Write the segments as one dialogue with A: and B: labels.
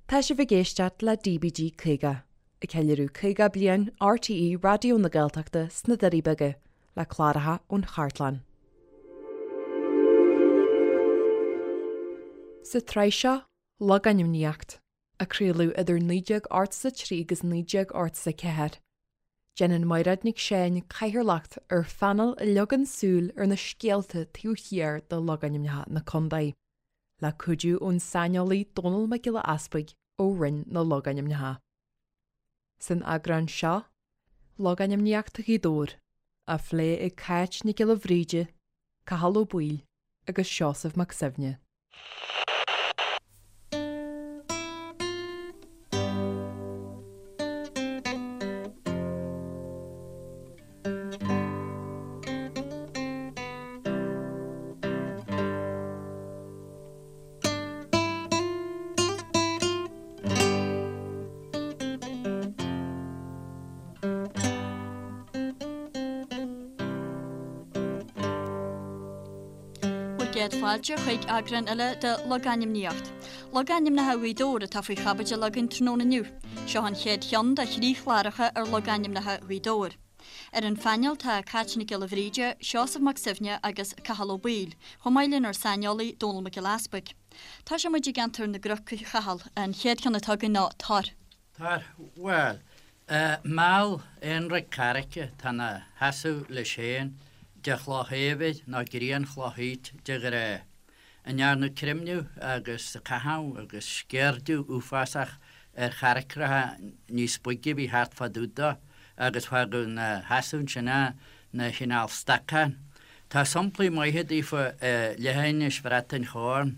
A: Tá sibh ag éisteacht le DBG 50, ag ceiliúradh 50 bliain RTÉ Raidió na Gaeltachta sna Doirí Beaga, le cláracha ón chartlann. Sa tsraith seo, Logainmníocht, a craoladh idir 1983 agus 1984, déanann Mairéad Nic Seáin cathaoirleacht ar phainéal a leagann súil ar na scéalta taobh thiar de logainmneacha na contae. le cuidiú ón saineolaí Dónall Mac Giolla Easpaig ó Roinn na Logainmneacha. San eagrán seo, Logainmníocht Ghaoth Dobhair, á phlé ag Cáit Nic Giolla Bhríde, Cathal Ó Baoill agus Seosamh Mac Suibhne.
B: Bhur gcéad fáilte chuig eagrán eile de Logainmníocht. Logainmneacha Ghaoth Dobhair atá faoi chaibidil againn tráthnóna inniu. Seo an chéad cheann de thrí chláracha ar logainmneacha Ghaoth Dobhair. Ar an phainéal tá Cáit Nic Giolla Bhríde, Seosamh Mac Suibhne agus Cathal Ó Baoill, chomh maith lenár saineolaí Dónall Mac Giolla Easpaig. Tosóidh muid i gceantar na gCnoc, a Chathail. An chéad cheann atá againn ná Tor.
C: Tor, bhuel, meall aonraic carraice atá 'na sheasamh leis féin de chloch éibhir nó grianchloch aoit de ghnáth. a ndearnadh creimneadh agus caitheamh agus sceirdiú uafásach ar charraicreacha níos boige a bhí thart fá dtaobh dó agus fágadh 'na sheasamh ansin é 'na chineál stacán. Tá somplaí maithe daofa i leithinis Bhrat an Chorn.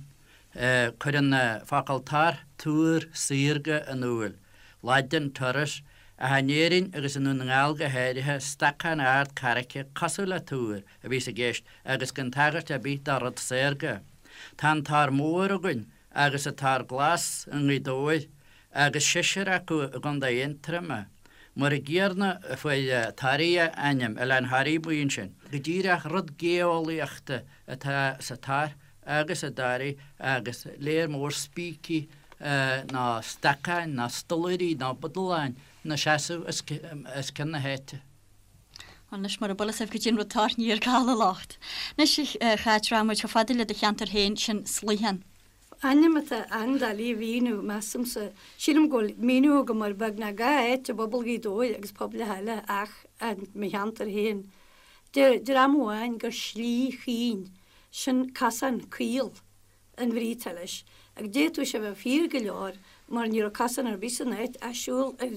C: Cuireann an focal tor túr saorga in iúl, Laidin, turris, ach in Éirinn agus i nDún na nGall go háirithe, stacán ard carraice cosúil le túr a bhíos i gceist agus gan tagairt ar bith do rud saorga. Tá an Tor Mór againn agus an Tor Glas i nGaoth Dobhair agus seisear acu i gContae Aontroma. Mar an gcéanna a fuair Toraigh a ainm, Oileán Thoraí amuigh ansin. Go díreach rud geolaíochta atá sa tor agus i dToraigh agus léar mór spící nó stacáin nó stollairí nó budaláin 'na seasamh os cionn na háite.
B: Anois, mura bhfuil fhios agaibh goidé an rud tor, ní ar Cathal an locht. Anois, a Cháit, rachaidh muid chomh fada le do cheantar féin, sin Sluicheán.
D: Ainm atá an-doiligh a mhíniú, measaimse. Sílim go bhfuil míniú agam ar beagnach gach áit i bpobal Ghaoth Dobhair agus pobail eile ach i mo cheantar féin. Deir dream amháin gur slí chaoin, sin cosán caol. an bhrí atá leis. Agus d'fhéadfadh sé a bheith fíor go leor mar ní raibh cosán ar bith san áit ach siúl ar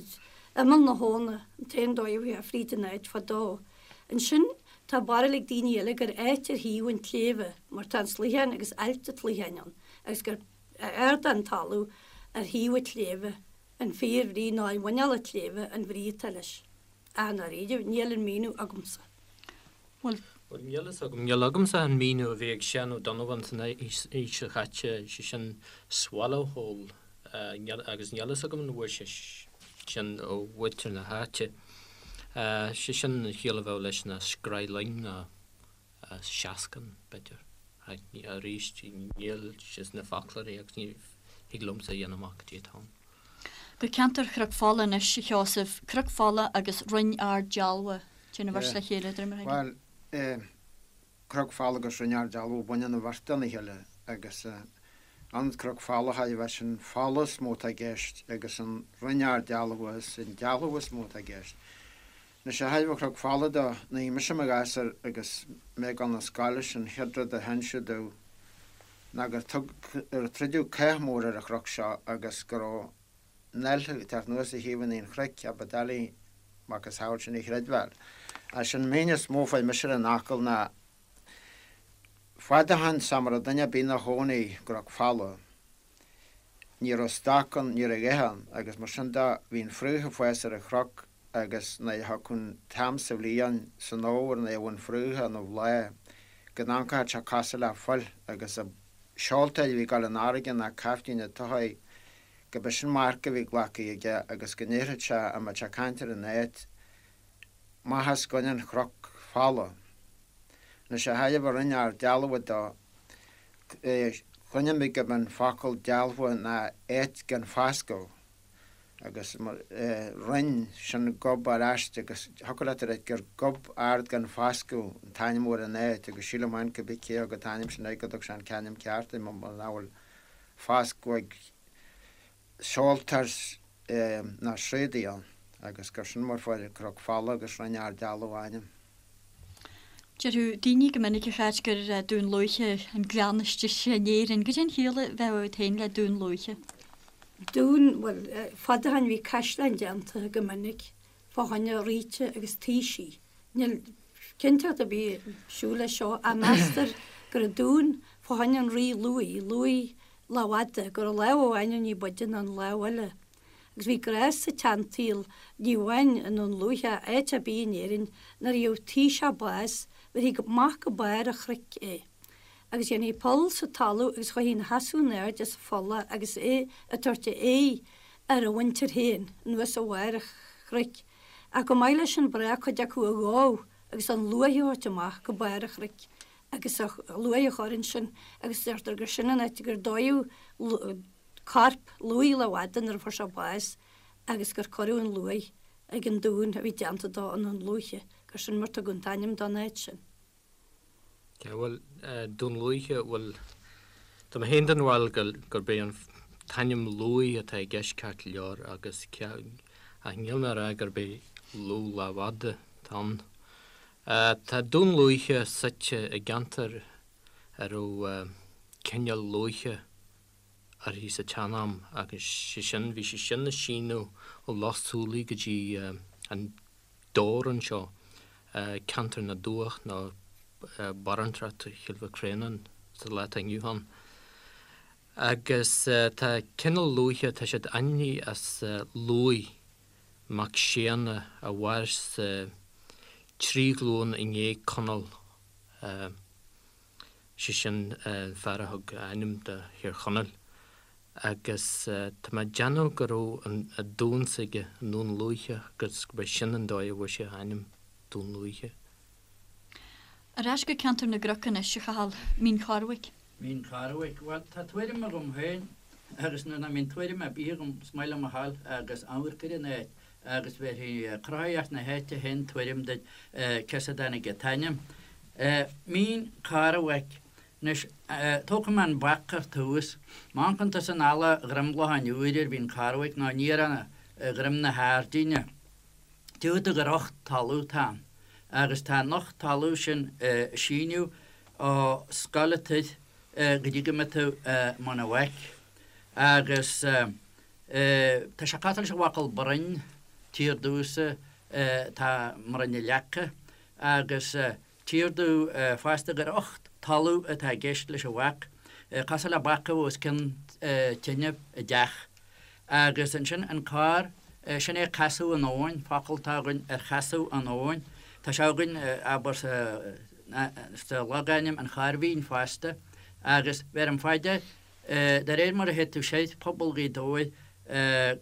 D: imeall na habhna an t-aon dóigh a bhfuighfeá fríd an áit fadó. Ansin tá barúil ag daoine eile gur áit ar thaobh an tsléibhe mar tá an Sluicheán agus Ailt an tSluicheáin ann agus gur ardán talamh ar thaobh an tsléibhe an fíor bhrí nó i muineál an tsléibhe an bhrí atá leis. Ach i ndáiríre níl an míniú agamsa.
B: Bhuel.
E: Bhuel, níl fhios agam. Níl agamsa an míniú a bhí ag Seán Ó Donnabháin san aois seo chaite, sé sin swallow hole, agus níl fhios agam an bhfuair sé sin ó mhuintir na háite. Sé sin an chiall a bheadh leis ná scraith loing nó seascann, b'fhéidir. Arís, níl sé sna foclóirí agus ní thig liomsa a dhéanamh amach cad é atá ann.
B: Go ceantar Chnoc Fola anois, a Sheosaimh. Cnoc Fola agus Rinn Ard Dealbha. Téann an bheirt le chéile, de réir mar a
F: thuigim. Bhuel, Cnoc Fola agus Rinn Ard Dealbha, baineann an bheirt lena chéile agus an Cnoc Fola chaill a bheith sin fola is mó atá i gceist agus an Rinn Ard Dealbha is an dealbh is mó atá i gceist. Anois ó thaobh an Chnoc Fola de, nuair a bhí mise i mo ghasúr agus mé ag dul 'na scoile, sin an chéad rud a hinseadh domh ná gur tug, gur troideadh cath mór ar an chnoc seo agus go raibh an ailthe ag teacht anuas ó thaobh an chnoic, a ba doiligh macasamhail sin a chreidbheáil. Ach sin an méin is mó a fuair mise ar an fhocal ná fad ó shoin sara raibh duine ar bith 'na chónaí i gCnoc Fola. Ní raibh stoc ann, ní raibh a dhath ann, agus mar sin de bhí an fraoch ag fás ar an chnoc agus nuair a thiocfadh an t-am sa bhliain, san fhómhar, nuair a bheadh an fraoch ina bhláth, go n-amharcfadh sé cosúil le fuil agus an seoltóir a bhí ag dul an fharraige ná caiftín an tsoithigh, go b'é sin marc a bhí glactha aige agus go ndéarfadh sé, a mbeadh sé ag caint ar an áit, Amach os coinne an chnoc fola. Anois ó thaobh an Rinn Ard Dealbha de. Chluinim mé gurb an focal dealbha ná áit gan foscadh agus roinn sin gob ar ais agus thiocfadh leat a ráit gur gob ard gan foscadh an t-ainm ar an áit agus sílim féin cibé cé a thug an t-ainm sin air go dtug sé an t-ainm ceart air mar nach bhfuil foscadh ag seoltóir ná sraodaí ann agus gur sin mar fuair Cnoc Folamh agus Rinn Ard Dealbh a ainm.
B: Déarfadh daoine go minic a Cháit gur Dún Lúiche an gleann is deise in Éirinn. Goidé an chiall a bheadh agat féin le Dún Lúiche?
D: Dún, bhuel, fad ó shin bhí caisleáin déanta go minic fá choinne ríte agus taoisigh. Níl cinnteacht ar bith siúl leis seo ach meastar go raibh dún fá choinne an rí Lughaidh, Lughaidh Lámhfhada, go raibh lámh amháin ní b'fhaide ná an lámh eile. Agus bhí gnás sa tseansaol, ní amháin i nDún Lúiche ach áit ar bith in Éirinn, nuair a gheobhadh taoiseach bás, bheirthí amach go barr an chnoic é. Agus dhéanfaí poll sa talamh agus chuirthí ina sheasamh in airde sa pholl agus é ag tabhairt a aghaidh ar a mhuintir féin, anuas ó bharr an chnoic. Ach chomh maith leis sin ba ghnách cuid acu a dhó agus an luaith a thabhairt amach go barr an chnoic agus a luaith a chur ansin agus deirtear gur sin an áit gur dódh corp Lughaidh Lámhfhada nuair a fuair sé bás agus gur cuireadh an luaith ag an dún a bhí déanta dó i nDún Lúiche, gur sin mar tugadh an t-ainm don áit sin.
E: Bhuel, Dún Lúiche, bhuel, tá mé féin den bharúil gurb é an t-ainm Lughaidh atá i gceist ceart go leor agus ach níl mé a rá gurb é Lugh Lámhfhada atá ann. Tá Dún Lúiche suite i gceantar a raibh cineál lúiche uirthi sa tsean-am agus sé sin, bhí sé sin ag síneadh ó Loch Súilí go dtí an Dobhar anseo, ceantar na dTuath nó barúntacht Chill Mhic Réanáin sa lá atá inniu ann. Agus tá cineál lúiche, tá siad ainmnithe as Lughaidh mac Séanna a mhair sa trí ghlúin i ndiaidh Conall. sé sin an fear a thug a ainm do Thír Chonaill, agus tá mé ag déanamh go raibh an dún s'aige i nDún Lúiche agus gurb é sin an dóigh a bhfuair sé a ainm, Dún Lúiche.
B: Ar ais go ceantar na gcnoc anois, a Chathail, Mín Chormhaic.
C: Mín Chormhaic, bhuel, tá tuairim agam féin, agus nuair nach mbíonn tuairim ar bith agam, is maith liom a ghabháil agus amharc ar an áit, agus bhéarfaidh cruthaitheacht na háite féin tuairim duit cé as a dtáinig an t-ainm. Mín Cormhaic. Anois, tógfaidh mé an bac ar tús. Má amharcann tusa in alla Dhroim Locháin Úir ar Mhín Chormhaic nó aniar ó Dhroim na hAirdíne, tchífidh tú gur ucht talamh atá ann. Agus tá an ucht talamh sin ag síneadh ó Scoil an Toir go dtí go mbeidh tú i mBun an Bhaic. Agus. Tá sé cosúil leis an bhfocal broinn, tír domhsa atá i mBroinn na Leaca, agus tír domh fosta gur ucht talamh atá i gceist leis an bhac, cosúil le bac a bheadh os cionn tine i dteach. Agus ansin an corr, sin é casadh an abhainn, focal atá againn ar chasadh an abhainn. Tá sé againn, abair, sa logainm An Chorr Mhín fosta, agus bheirim fá dear, De réir mar a théid tú soir, pobal Ghaoth Dobhair,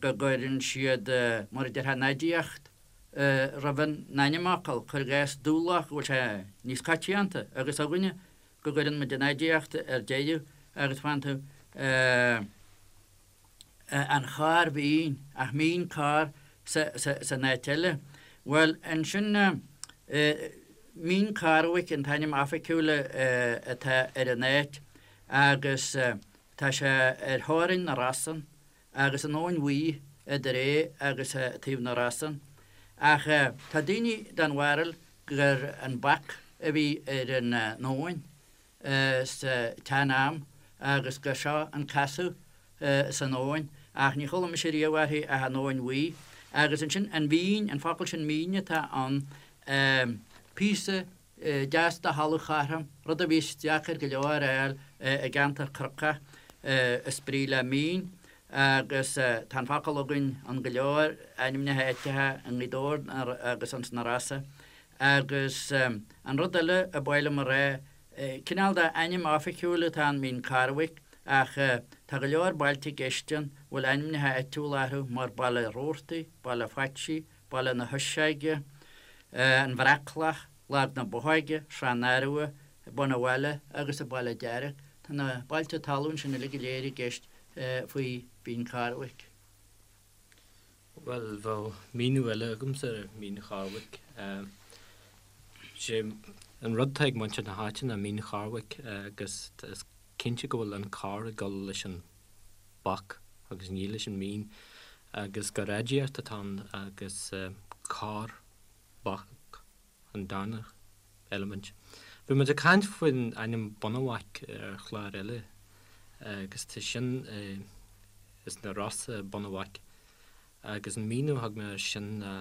C: go gcuireann siad, mar a déarfá, an aidiacht roimh an ainmfhocal, cuir i gcás Dúloch, go bhfuil sé níos coitianta, agus againne, go gcuireann muid an aidiacht ar deireadh agus faigheann tú an Chorr Mhín, ach Mín Corr san áit eile. Bhuel, ansin, Mín Cormhaic an t-ainm oifigiúil atá ar an áit. agus tá sé ar theorainn na Rosann agus an Abhainn Bhuí idir é agus taobh na Rosann. Ach tá daoine den bharúil gur an bac a bhí ar an abhainn sa tsean-am agus gur seo an casadh san abhainn, ach ní chuala mise riamh uirthi ach an Abhainn Bhuí. Agus ansin an mhín, an focal sin mín atá ann, píosa deas de thalamh chothrom, rud a bhíos deacair go leor a fháil i gceantar cnocach, is brí le mín, agus tá an focal againn in go leor ainmneacha áiteacha i nGaoth Dobhair agus ins na Rosa. Agus an rud eile a ba mhaith liom a rá, cineál de ainm oifigiúil atá ann, Mín Cormhaic, ach tá go leor bailte i gceist ann a bhfuil ainmneacha áitiúla orthu mar Baile Roarty, Baile Phaitsí, Baile na hUiseoige, An Bhreacloch, Lag na Bothóige, Srath an Arbha, Bun an Bhaile agus an Baile Dearg. Tá na bailte talún sin uilig go léir i gceist faoi Mhín Charbhaic.
E: Bhuel, bheadh míniú eile agamsa ar Mhín Charbhaic. Sé an rud atá ag muintir na háite ná Mín Charbhaic agus is cinnte go bhfuil an carr ag dul leis an bac agus ní leis an mín agus gur aidiacht atá ann agus carr bac an darna eilimint. Bhí muid ag caint faoin ainm Bunabhac ar chlár eile agus tá sin is na Rosa Bunabhac agus an míniú a thug mé air sin ná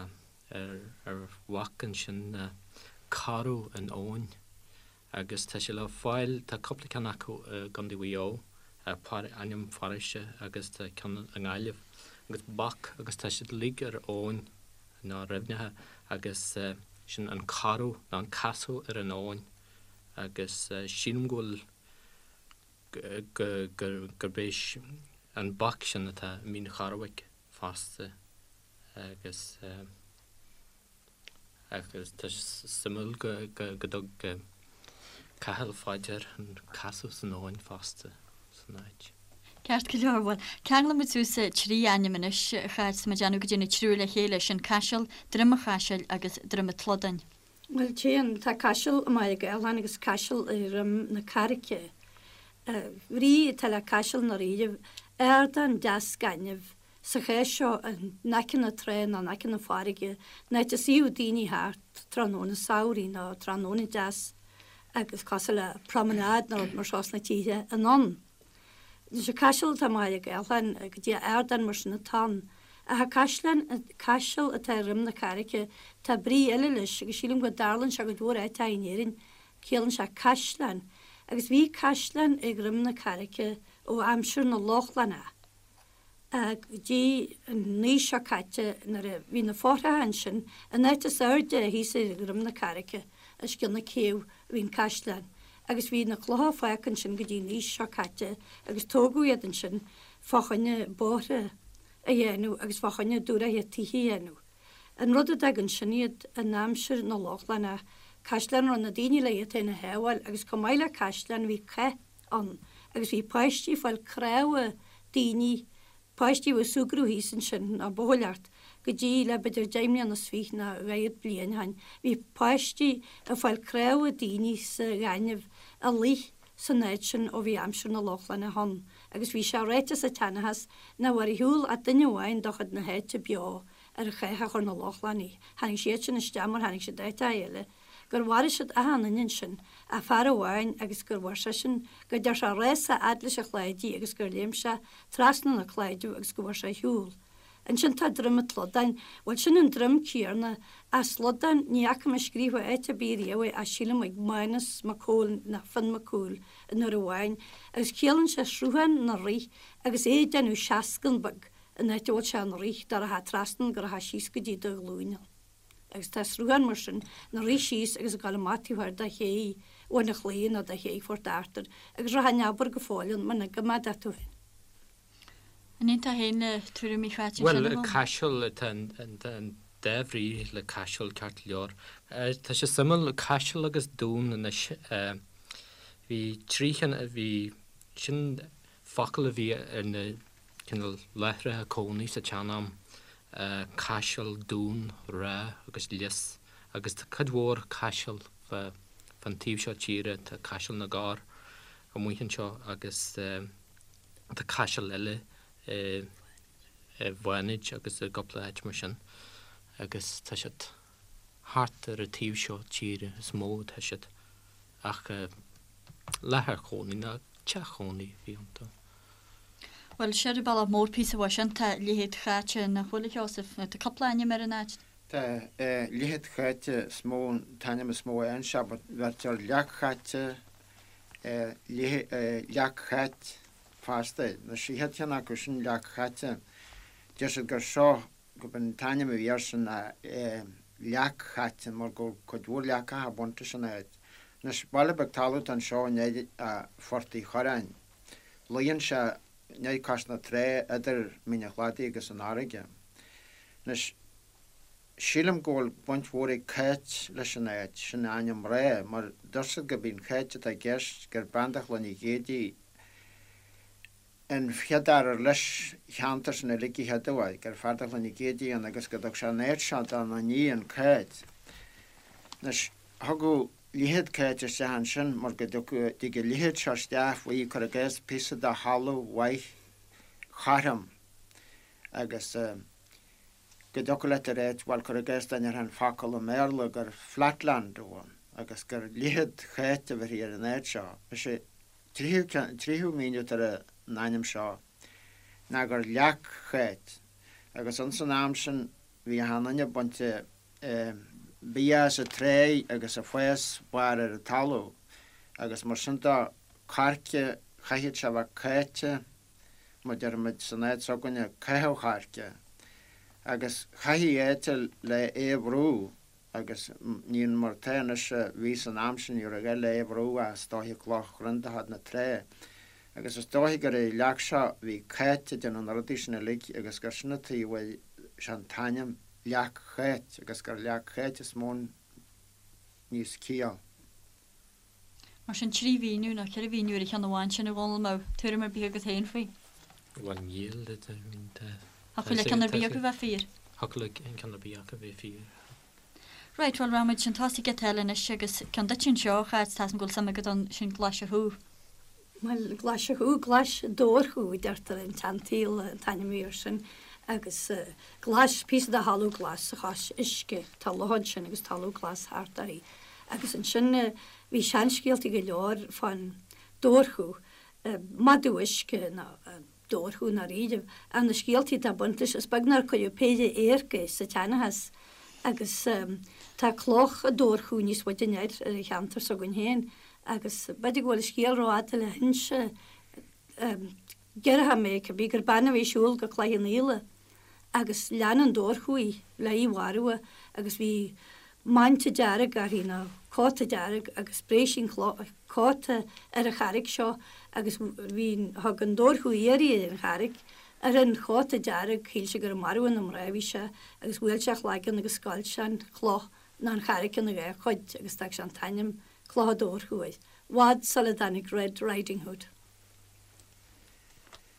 E: ar bhac ansin ná caradh in abhainn agus tá sé le fáil, tá cúpla ceann acu i gContae Mhaigh Eo, ainm pharóiste agus tá ceann i nGaillimh agus bac agus tá siad uilig ar abhainn nó ar aibhneacha agus sin an caradh nó an casadh ar an abhainn agus sílim go bhfuil gurb é an bac sin atá i Mín Charbhaic fosta agus. Agus tá sé suimiúil go dtug Cathal faoi dear an casadh san abhainn fosta san áit.
B: Ceart go leor, bhuel, ceanglóidh muid suas 3 ainm anois, a chairde, tá muid ag déanamh go dtí na triúr le chéile, sin Caiseal, Droim an Chaisil agus Droim an tSlodáin.
D: Bhuel, téann, tá Caiseal i mBaile Ghaeltháin agus Caiseal i Dhroim na Carraice. Brí atá le Caiseal i ndáiríribh, ardán deas gainimh, Sa chás seo, in aice na trá nó in aice na farraige, an áit a suíodh daoine thart tráthnóna samhraidh nó tráthnóna deas agus cosúil le promenade nó rud mar seo sna tithe anonn. Anois an caiseal atá i mBaile Ghaeltháin, goidé ardán mar sin atá ann. Ach an caisleán, caiseal atá i Dhroim na Carraice, tá brí eile leis agus sílim go dtarlaíonn sé i gcuid mhór áiteacha in Éirinn, ciallaíonn sé caisleán. Agus bhí caisleán i Dhroim na Carraice ó aimsir na Lochlannach. Go dtí an aois seo caite nuair a bhí na fothracha ansin, an áit is airde thíos ar dhroim na carraice, os cionn na céibhe, a bhí an caisleán. Agus bhí na clocha fágtha ansin go dtí an aois seo caite agus tógadh iad ansin fá choinne bóithre a dhéanamh agus fá choinne dúshraithe tithe a dhéanamh. An rud a d'fhág ansin iad in aimsir na Lochlannach, caisleán a raibh na daoine le iad féin a shábháil agus chomh maith le caisleán bhí cath ann agus bhí páistí ag fáil cnámha daoine, páistí a bhí ag súgradh thíos ansin, nó buachailleacht, go dtí le b'fhéidir deich mbliana is fiche nó dhaichead bliain ó shin, bhí páistí ag fáil cnámha daoine sa ghaineamh a luigh san áit sin ó bhí aimsir na Lochlannach ann agus bhí sé ráite sa tseanchas nach raibh ar shiúl ach duine amháin de chuid na háite beo ar an chath a chuir na Lochlannaigh, tháinig siad sin isteach mar tháinig siad áiteacha eile. gur mharaigh siad achan duine ansin ach fear amháin agus gur bhain seisean, go dtear sé rása a fhad leis an chlaidí agus gur léim sé trasna na claideamh agus go bhfuair sé ar shiúl. Ansin tá Droim an tSlodáin, bhuel sin an droim céarna, ach slodán, ní fhaca mé scríofa áit ar bith riamh é ach sílim ag Mánus Mac Cóil nó Fionn Mac Cumhaill an uair amháin agus ciallaíonn sé sruthán 'na rith agus é ag déanamh seascann beag an áit a bhfuil sé 'na rith dá rachfá trasna go rachfá síos go dtí do ghlúine. Agus tá sruthán mar sin 'na rith síos agus ag dul amach taobh thoir de ché Bhun an Chlaí nó de ché Phort Arthur agus rachfá in abar go fóill ann muna gcoimeádfá tú féin.
B: An aontófá féin le tuairimí Cháit ansin, a
E: Bhuel,
B: Mhánas?
E: caiseal, tá an dá bhrí le caiseal ceart go leor. Tá sé suimiúil, caiseal agus dún anois, bhí trí cheann, bhí, sin focal a bhí ar na cineál láithreacha cónaí sa tsean-am, caiseal, dún, ráth agus lios agus tá cuid mhór caiseal fán taobh seo tíre, tá Caiseal na gCorr amuigh anseo agus tá caiseal eile i bhFánaid agus i gcúpla áit mar sin agus tá siad thart ar an taobh seo tíre is mó atá siad ach láthair chónaí ná teach chónaí a bhí iontu.
B: Bhuel, siar an bealach mór píosa uaidh sin, tá Leithead Cháite, nach bhfuil, a Sheosaimh? Tá cúpla ainm ar an áit.
F: Tá, Leithead Cháite is mó, an t-ainm is mó a fhaigheann sé, but bheirtear Leac Cháite, Leac Cháit fosta. An chéad cheann acu sin, Leac Cháite, deir siad gur seo, gurb an t-ainm a bhí air sin ná Leac Cháite mar go raibh cuid mhór leacacha bainte as an áit. Anois, baile beag talún atá anseo i ndiaidh Phort Uí Chorráin. Luíonn sé in aice cois na trá idir Mín an Chladaigh agus an fharraige. Anois, sílim go bhfuil baint mhór ag Cáit leis an áit, sin ainm mná, mar deir siad gurb í an Cháit atá i gceist, gur bean de Chloinn Uí Ghéidigh. An chéad fhear ar leis cheantar sin uilig a chéaduair, gur fear de Chloinn Uí Chéide ann agus go dtug sé an áit seo dá n-iníon Cáit. Anois, thugadh Liathróid Cáit isteach ansin mar go dtig an liathróid seo isteach faoi, cuir i gcás, píosa de thalamh mhaith chothrom agus go dtiocfadh leat a ráit, bhuel, cuir i gcás dá ndéarfá an focal i mBéarla gur flatland a bhí ann agus gur Liathróid Cháit a bheirthí ar an áit seo. Is é tríú míniú atá ar an ainm seo ná gur Leac Cháit agus ins an am sin bhí achan duine ag baint bia as an tráigh agus ag fás barr ar an talamh agus mar sin de coirce chaithfeadh sé a bheith cáite mar deirimid san áit s'againne caitheamh choirce agus chaithfí áit le é a bhrú. Agus ní mar atá anois a bhí san am sin, ní raibh gá le é a bhrú ach is dóiche cloch chruinn de fhad na trá. Agus is dóiche gur ar an leac seo a bhí Cáit ag déanamh na rudaí sin uilig agus gur sin an tuige a bhfuil sé an t-ainm Leac Cháit agus gur Leac Cháit is mó níos ciall.
B: Mar sin, 3 mhíniú nó 4 mhíniú ar an cheann amháin sin, a Dhónaill, an mbeadh tuairim ar bith agat féin faoi?
E: Bhuel, níl, I mean, tá.
B: Thiocfadh le ceann ar bith acu bheith fíor.
E: Thiocfadh le ceann ar bith acu bheith fíor.
B: Right, bhuel, rachaimid chun tosaigh giota eile anois agus ceann duit anseo, a Cháit, tá a fhios agam go bhfuil suim agat ann, sin Glaise Chú.
D: Bhuel, Glaise Chú, Glais Dobhar-chú a deirtear in tseansaol, an t-ainm a bhí air sin, agus glais, píosa de thalamh glas chois uisce, tá loch ansin agus talamh glas thart uirthi. Agus ansin bhí seanscéaltaí go leor fán dobharchú, madadh uisce nó dobharchú i ndáiríribh, ach na scéaltaí atá baint leis, is beag nár cuireadh péire adharc é sa tseanchas. Agus tá cloch an dobharchú níos faide anoir ar an cheantar s'againn féin agus b'fhéidir go bhfuil an scéal rófhada le hinse, déarfaidh mé, cibé, gur bean a bhí ag siúl go Cloich Cheann Fhaola agus lean an dobharchú í le í mharú agus bhí manta dearg uirthi nó cóta dearg agus spréigh sí an cóta ar an charraig seo agus bhí thug an dobharchú iarraidh ar an charraig ar an chóta dearg shíl sé gur ag marú na mná a bhí sé agus bhuail sé a chlaigeann agus scoilt sé an chloch nó an charraig ina dhá chuid agus d'fhág sé an t-ainm Cloch an Dobharchú air. Bhfad sula dtáinig Red Riding Hood.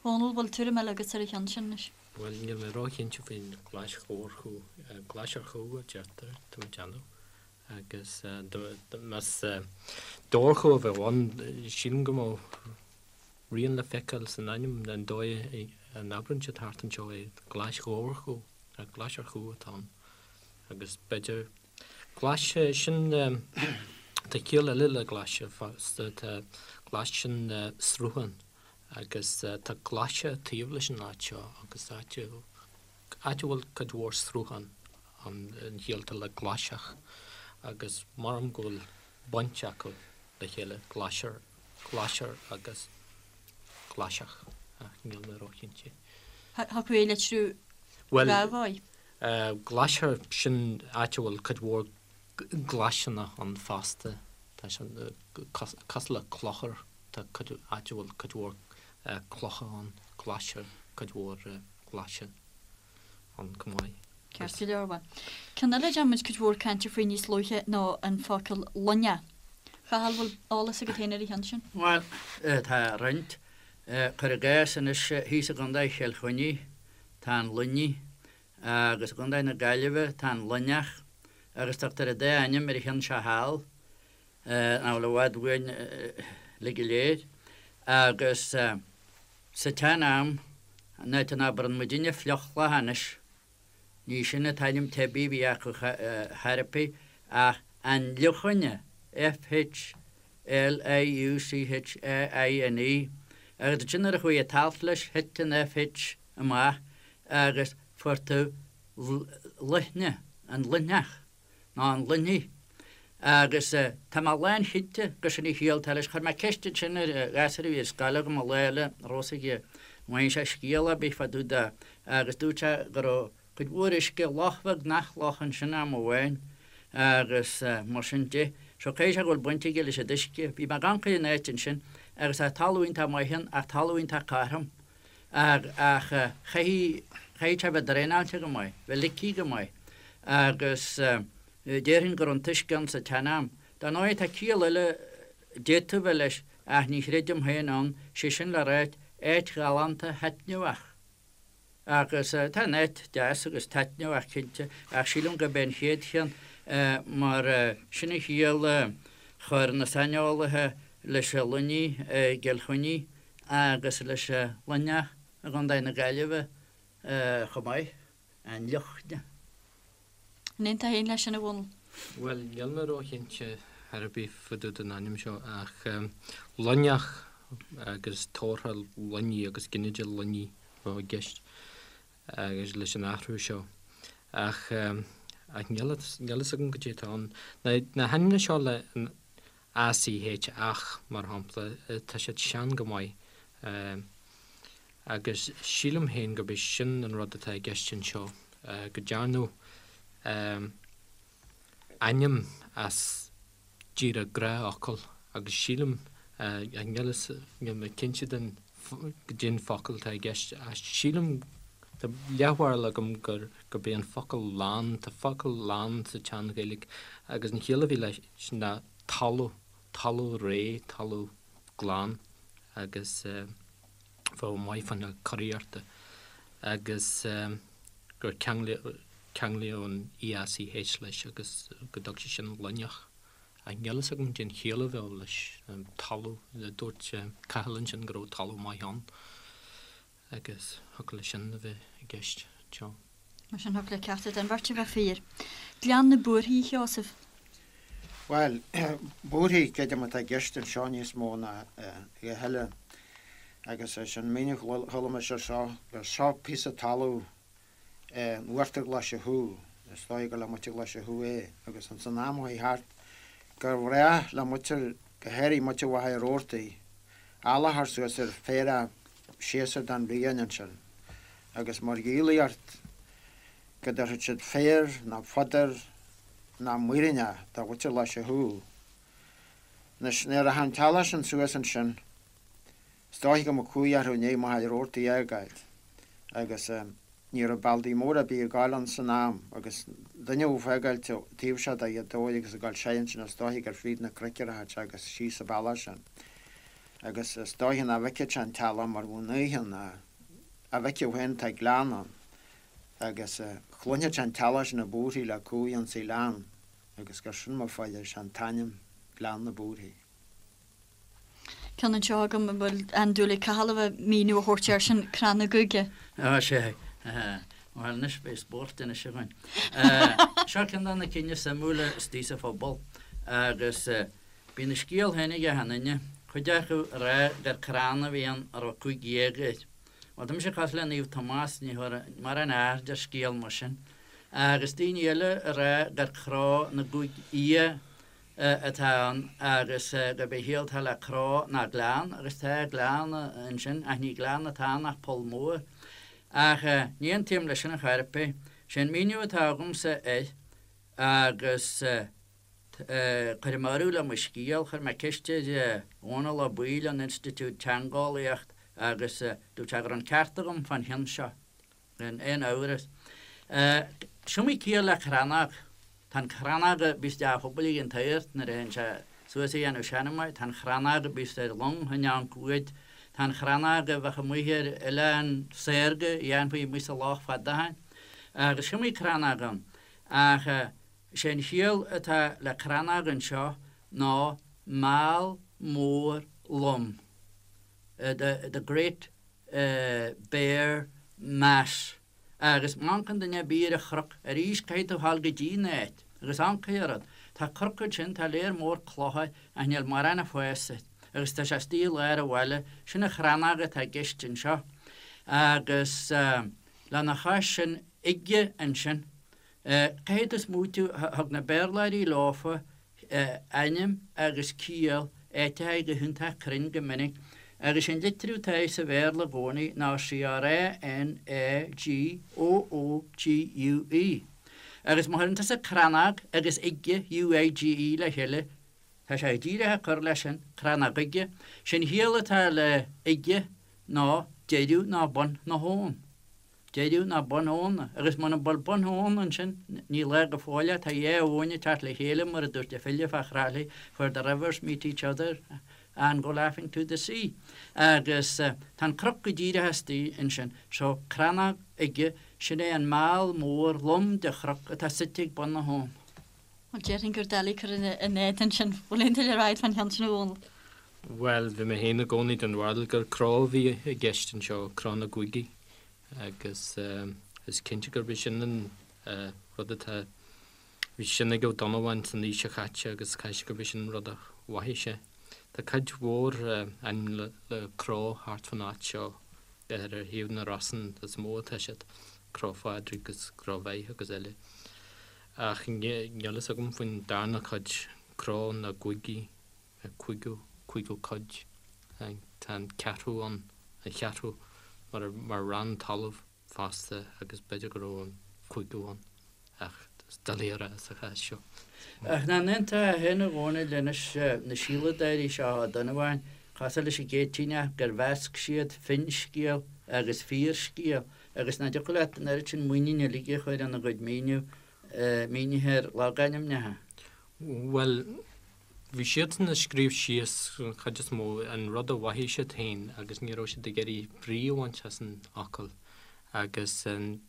B: Dhónaill, bhfuil tuairim eile agat ar an cheann sin anois?
E: Bhuel, níl mé róchinnte faoin Ghlais Dhobharchú. Glais ar chú a deirtear, tá mé ag déanamh. Agus más dobharchú a bheadh ann, sílim go mbeadh rian le feiceáil san ainm, an dóigh a n-abrann siad thart anseo é, Glais Dhobharchú, ach Glais ar chú atá ann. Agus b'fhéidir Glaise, sin, tá ciall eile le glaise fosta, tá glais sin sruthán agus tá glaise taobh leis an áit seo agus áit, áit a bhfuil cuid mhór sruthán ann an chiall atá le glaiseach agus maram go bhfuil baint acu le chéile, glaise, glaise agus glaiseach ach níl mé róchinnte.
B: Thiocfadh é a litriú
E: Bhuel,
B: dhá dhóigh.
E: Glaise, sin áit a bhfuil cuid mhór glaiseanna ann fosta. Tá sé cosúil le clochar, tá cuid, áit a bhfuil cuid mhór clocha ann, glaise, cuid mhór glaise ann chomh maith.
B: Ceart go leor, bhuel. Ceann eile a dhearna muid cuid mhór cainte faoi níos luaithe ná an focal luinneach. Chathail, bhfuil eolas agat féin ar an cheann sin?
C: Bhuel, tá roinnt. Cuir i gcás anois thíos i gContae Chill Chainnigh, tá an Luinnigh, agus i gContae na Gaillimhe tá an Luinneach, agus tugtar an dá ainm ar an cheann seo thall, nach bhfuil i bhfad uainn uilig go léir. Agus sa tsean-am, an áit a n-abrann muidinne fliuchloch anois, Ní sin an t-ainm teibí a bhí acu chor ar bith ach an Fhliuchaine, F-H-L-I-U-C-H-A-I-N-E, agus ansin nuair a chuaigh an t-alt leis thit an F-H amach agus fuair tú Luithne, an Luithneach, nó an Luinnigh. Agus tá mé lánchinnte gur sin an chiall atá leis. Chuir mé ceist ansin ar ghasúr a bhí ar scoil agam an lá eile, an raibh a fhios aige an bhfaigheann sé scéal ar bith fá dtaobh de agus dúirt sé go raibh cuid mhór uisce, loch bheag nach loch ansin am amháin agus mar sin de. So caithfidh sé go bhfuil baint aige leis an uisce. Bhí mé ag amharc ar an áit ansin agus tá talamh iontach maith ann ach talamh iontach cothrom. Ach chaithfidh, chaithfidh sé bheith draenáilte go maith, bheith ligthe go maith agus déarfainn go raibh an t-uisce ann sa tsean-am. Dar ndóigh tá ciall eile d'fhéadfadh bheith leis ach ní chreidim féin ann, sé sin le ráit. áit ghalánta thaitneamhach. Agus tá an áit deas agus taitneamhach cinnte, ach sílim gurb é an chéad cheann mar sin an chiall a chuir na saineolaithe leis an Luinnigh i gCill Chainnigh agus leis an Luinneach i gContae na Gaillimhe chomh maith, an Luchne.
B: An aontófá féin leis sin, a Dhónaill?
E: Bhuel, níl mé róchinnte ar bith fá dtaobh den ainm seo ach Luinneach agus tabharthach Luinnigh agus ginideach Luinnigh a bheadh i gceist agus leis an athrú seo. Ach ach níl a fhios agam goidé atá ann. Na hainmneacha seo le an ACH, ach, mar shampla, tá siad sean go maith. Agus sílim féin gurb é sin an rud atá i gceist anseo, go ndearnadh ainm as díreach gnáthfhocal agus sílim, níl níl mé cinnte den goidé an focal atá i gceist ach sílim, tá leathbharúil agam gur gurb é an focal lann, tá focal lann sa tSean-Ghaeilge agus an chiall a bhí leis ná talamh, talamh réidh, talamh glan agus. bheadh maith fá choinne curaíochta agus gur ceanglaíodh an EACH leis agus go dtug sé sin Luinneach. Ach níl fhios agam cén chiall a bheadh leis, talamh, dúirt Cathal ansin go raibh talamh maith ann agus thiocfadh leis sin a bheith i gceist anseo.
B: Mar sin thiocfadh le ceachtar den bheirt a bheith fíor. Gleann na Búrfaí, a Sheosaimh.
F: Bhuel, búrfaidh, creidim, atá i gceist anseo níos mó ná a dhath eile. Agus is an míniú a chuala mise air seo, gur seo píosa talaimh in uachtar Ghlaise Chú, is dóigh gur le muintir Ghlaise Chú é, agus ins an am a chuaigh thart, gur bhreá le muintir, go háirithe muintir Mhachaire Rabhartaigh, eallach a chur suas ar féarach séasúr den bhliain ansin. Agus mar dhíolaíocht go dtabharfadh siad féar ná fodar ná muiríneach do mhuintir Ghlaise Chú. Anois, nuair a théadh an t-eallach sin suas ansin, is dóiche go mbeadh cumhaidh orthu i ndiaidh Machaire Rabhartaigh a fhágáilt, agus ní raibh bealtaí móra ar bith ag gabháil ann san am, agus duine a bheadh ag fágáilt taobh seo de Ghaoth Dobhair agus ag gabháil soir ansin, is dóiche gur fríd na cnoic a rachadh sé agus síos an bealach sin. Agus is dóiche nach bhfeicfeadh sé an t-eallach mar bheadh an oíche ann, a bhfeicfeadh féin tá gleann ann. Agus chluinfeadh sé an t-eallach sin ag búirthigh le cumhaidh ins an ghleann agus gur sin mar fuair sé an t-ainm Gleann na Búrfaí.
B: Ceann anseo agam a bhfuil an-dúil ag Cathal a bheith míniú a thabhairt air sin, Crann na gCuige.
C: Á, sea. Bhuel, anois beidh spórt anois againn. Seo ceann de na cinn is suimiúla istigh sa phobal agus bíonn a scéal féin ag achan duine, cuid acu ag rá gur crann a bhí ann a raibh 15 géag air. Bhuel, tá mise cosúil le Naomh Tomás, ní thabharfainn mórán aird ar scéal mar sin. Agus daoine eile ag rá gur cró na gcúig fhia atá ann agus gurb é an chiall atá le cró ná gleann, agus tá gleann ansin, ach ní gleann atá ann ach poll mór. Ach ní aontaím leis sin ar chor ar bith. Sé an míniú atá agamsa air agus. Cuirfidh mé urú le mo scéal. Chuir mé ceist ar Dhónal Ó Baoill ón Institiúid Teangeolaíocht agus dúirt sé go raibh an ceart agam fán cheann seo, gan aon amhras. Is iomaí ciall le crannóg. Tá an chrannóg a bíos i dteach an phobail ag an tSagart nuair a théann sé suas a dhéanamh seanmóir, tá an chrannóg a bíos ar long in am cuaid, tá an chrannóg a bheadh amuigh ar oileán saorga a dhéanfaí amuigh sa loch fada ó shin. Agus is iomaí crannóg ann. Ach. Is é an chiall atá le crannóg anseo ná meall mór lom, the great bare mass. Agus má amharcann duine ar bith ar an chnoc, arís caithfidh tú a ghabháil go dtí an áit agus amharc ar an rud. Tá cnoc ansin, tá léar mór clocha ach níl mórán ag fás air agus tá sé istigh i lár an bhaile. Sin an chrannóg atá i gceist anseo. Agus lena chois sin, uige ansin. Caithfidh tú smaoitiú, thug na Béarlóirí leofa ainm agus ciall áiteacha go hiontach cruinn go minic, agus an litriú atá air sa Bhéarla i gcónaí ná C-R-A-N-A-G-O-O-G-U-E. Agus má chuireann tusa crannóg agus uige, U-I-G-E, le chéile, tá sé díreach ag cur leis sin, Crannóg Uige. Sé'n chiall atá le uige ná deireadh ná bun na habhann. Deireadh ná bun abhann, agus muna bhfuil bun abhann ansin, ní lá go fóill é, tá dhá abhainn ag teacht le chéile, mar a dúirt an file fá Thrá Lí, where the rivers meet each other. And go laughing to the sea. Agus tá an cnoc go díreach istigh ansin. So, Crannóg Uige, sin é an meall mór lom de chnoc atá suite ag bun na habhann.
B: Bhuel, déarfainn gur doiligh cur ina éadan sin. Bhfuil aon tuilleadh le rá fán cheann sin a Dhónaill?
E: Bhuel, bhí mé féin i gcónaí den bharúil gur cró a bhí i gceist anseo, cró na gcúigí, agus is cinnte gurb é sin an rud atá, bhí sin ag Ó Donnabháin san aois seo chaite agus caithfidh sé gurb é sin an rud a mhothaigh sé. Tá cuid mhór ainm le cró thart fán áit seo, ar thaobh na Rosann is mó atá siad, Cró Phádraig agus Cró Mheith agus eile. Ach níl fhios agam faoin darna cuid, cró na gcúigí, cúigiú, cúigiú cuid, tá an ceathrú ann, an cheathrú, mar, mar rann talaimh fosta agus b'fhéidir go raibh an cúigiú ann ach is doiligh a rá sa chás
C: seo. Ach nach n-aontófá féin a Dhónaill anois na síoladóirí seo Ó Donnabháin, cosúil leis an gCéitinneach gur mheasc siad finscéal agus fíorscéal Agus nach dtiocfadh leat an oiread sin muiníne uilig a chur ina gcuid míniú, mínithe ar logainmneacha?
E: Bhuel, bhí siadsan ag scríobh síos, an chuid is mó, an rud a mhothaigh siad féin agus ní raibh siad ag iarraidh brí a bhaint as an fhocal. Agus an,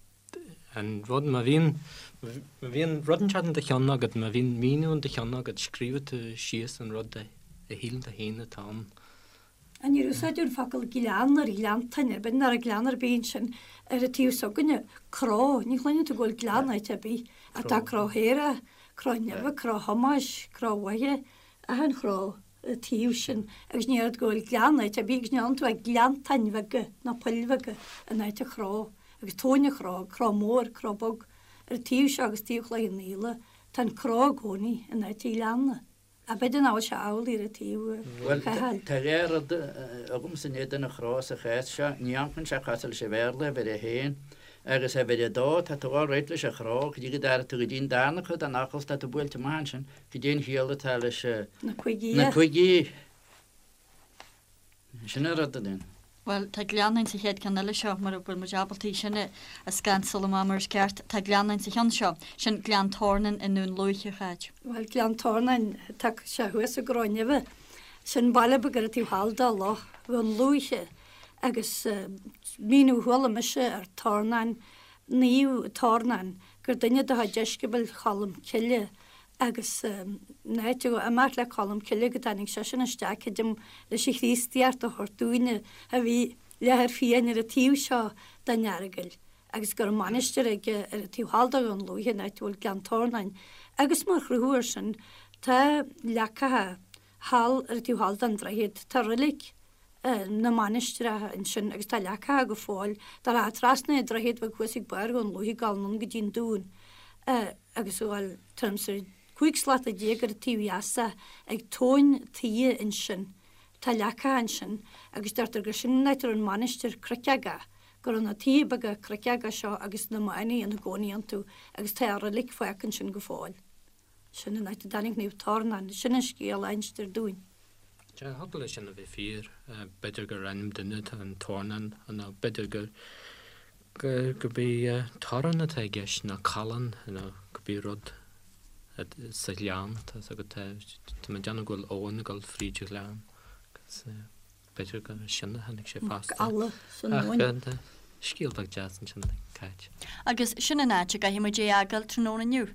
E: an rud, má bhíonn, má bhíonn rud inteacht in do cheann agat, má bhíonn míniú in do cheann agat, scríobhann tú síos an rud a shíleann tú féin atá ann.
D: Ach níor úsáideadh an focal gleann ar ghleanntáin ar bith, nach raibh gleann ar bith ansin ar an taobh s'againne, cró, ní chluineann tú go bhfuil gleann áit ar bith, ach tá Cró Shéarach, Cró Neimhe, Cró Thomáis, Cró Mhaithe, achan chró an taobh sin agus ní oiread go bhfuil gleann áit ar bith agus ní fhaigheann tú ach gleanntáin bheaga nó poill bheaga in áit an chró agus tóin an chró, cró mór, cró beag ar an taobh seo agus taobh Chloich Cheann Fhaola, tá an cró i gcónaí in áit an ghleanna. Ach b'fhéidir nach bhfuil sé amhlaidh ar an taobh
C: Bhuel, Chathail. tá dhá rud agamsa in éadan an chró sa chás seo. Ní amharcann sé cosúil leis an Bhéarla, uimhir a haon, agus uimhir a dó, tá tú all right leis an chró, go dtí go dtara tú go dtí an darna cuid den fhocal, tá tú buailte amach ansin, goidé an chiall atá leis
D: Na cúigí.
C: na cúigí. Sin an rud a dhéanamh.
B: Bhuel, tá gleann ann sa chéad ceann eile seo, mura bhfuil muid ábalta í sin a scansáil amach mar is ceart. Tá gleann ann sa cheann seo. Sin Gleann Tornáin i nDún Lúiche, a Cháit.
D: Bhuel, Gleann Tornáin, tá sé thuas i gCró Neimhe. Sin baile beag ar an taobh thall de Loch Dhún Lúiche. Agus míniú a chuala mise ar Tornán, Naomh Tornán, gur duine de dheisceabail Cholm Cille agus an áit a imeacht le Colm Cille go dtáinig seisean isteach creidim leis an Chríostaíocht a thabhairt dúinne a bhí leathar fiáin ar an taobh seo den Earagail agus go raibh mainistir aige ar an taobh thall de Dhún Lúiche an áit a bhfuil Gleann Tornáin agus mar chruthú air sin tá leacacha thall ar an taobh thall den droichead tá roilig na mainistreach ansin agus tá leacacha go fóill dá rachfá trasna an droichead bheag thuas ag barr Dhún Lúiche ag dul anonn go dtí an dún agus a ghabháil tuairim is 15 slata ar an taobh dheas de ag tóin tuí ansin. Tá leacacha ansin agus deirtear gur sin an áit a raibh an mhainistir cnoic go raibh na tithe beaga cnoiceacha seo agus na manaigh ina gcónaí iontu agus tá a roilig fágtha ansin go fóill. Sin an áit a dtáinig Naomh Tornán. Sin an scéal a instear dúinn.
E: Sea, thiocfadh leis sin a bheith fíor. B'fhéidir gur ainm duine atá in Tornán nó b'fhéidir gur gurb é torrán atá i gceist nó callán nó cibé rud sa ghleann. Tá 'fhios agat, tá mé ag déanamh go bhfuil abhainn ag dul fríd an ghleann agus B'fhéidir gur as sin a tháinig sé fosta.
D: Mac Alla san abhainn.
E: Ach scéal beag deas ansin ag Cáit.
B: Agus sin an áit a gcaithfidh muid é a fhágáil tráthnóna inniu.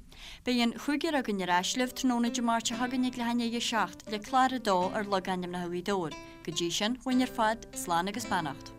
B: Beidh an chúigear againn ar ais libh tráthnóna Dé Máirt seo chugainn ag leath i ndiaidh a 7 le clár a dó ar Logainmneacha Ghaoth Dobhair. Go dtí sin, uainn ar fad, slán agus beannacht.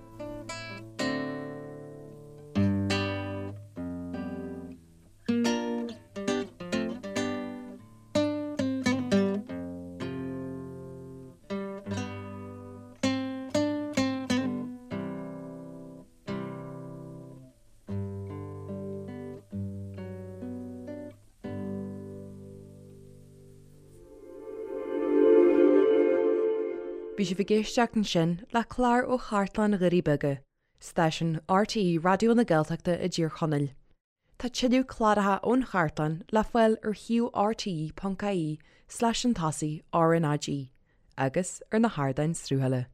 A: Bhí sibh ag éisteacht ansin le clár ó Chartlann Dhoirí Beaga, stáisiún RTÉ Raidió na Gaeltachta i dTír Chonaill. Tá tuilleadh cláracha ón chartlann le fáil ar shuíomh rte.ie slash an tosaigh RnaG agus ar na hardáin sruthaithe.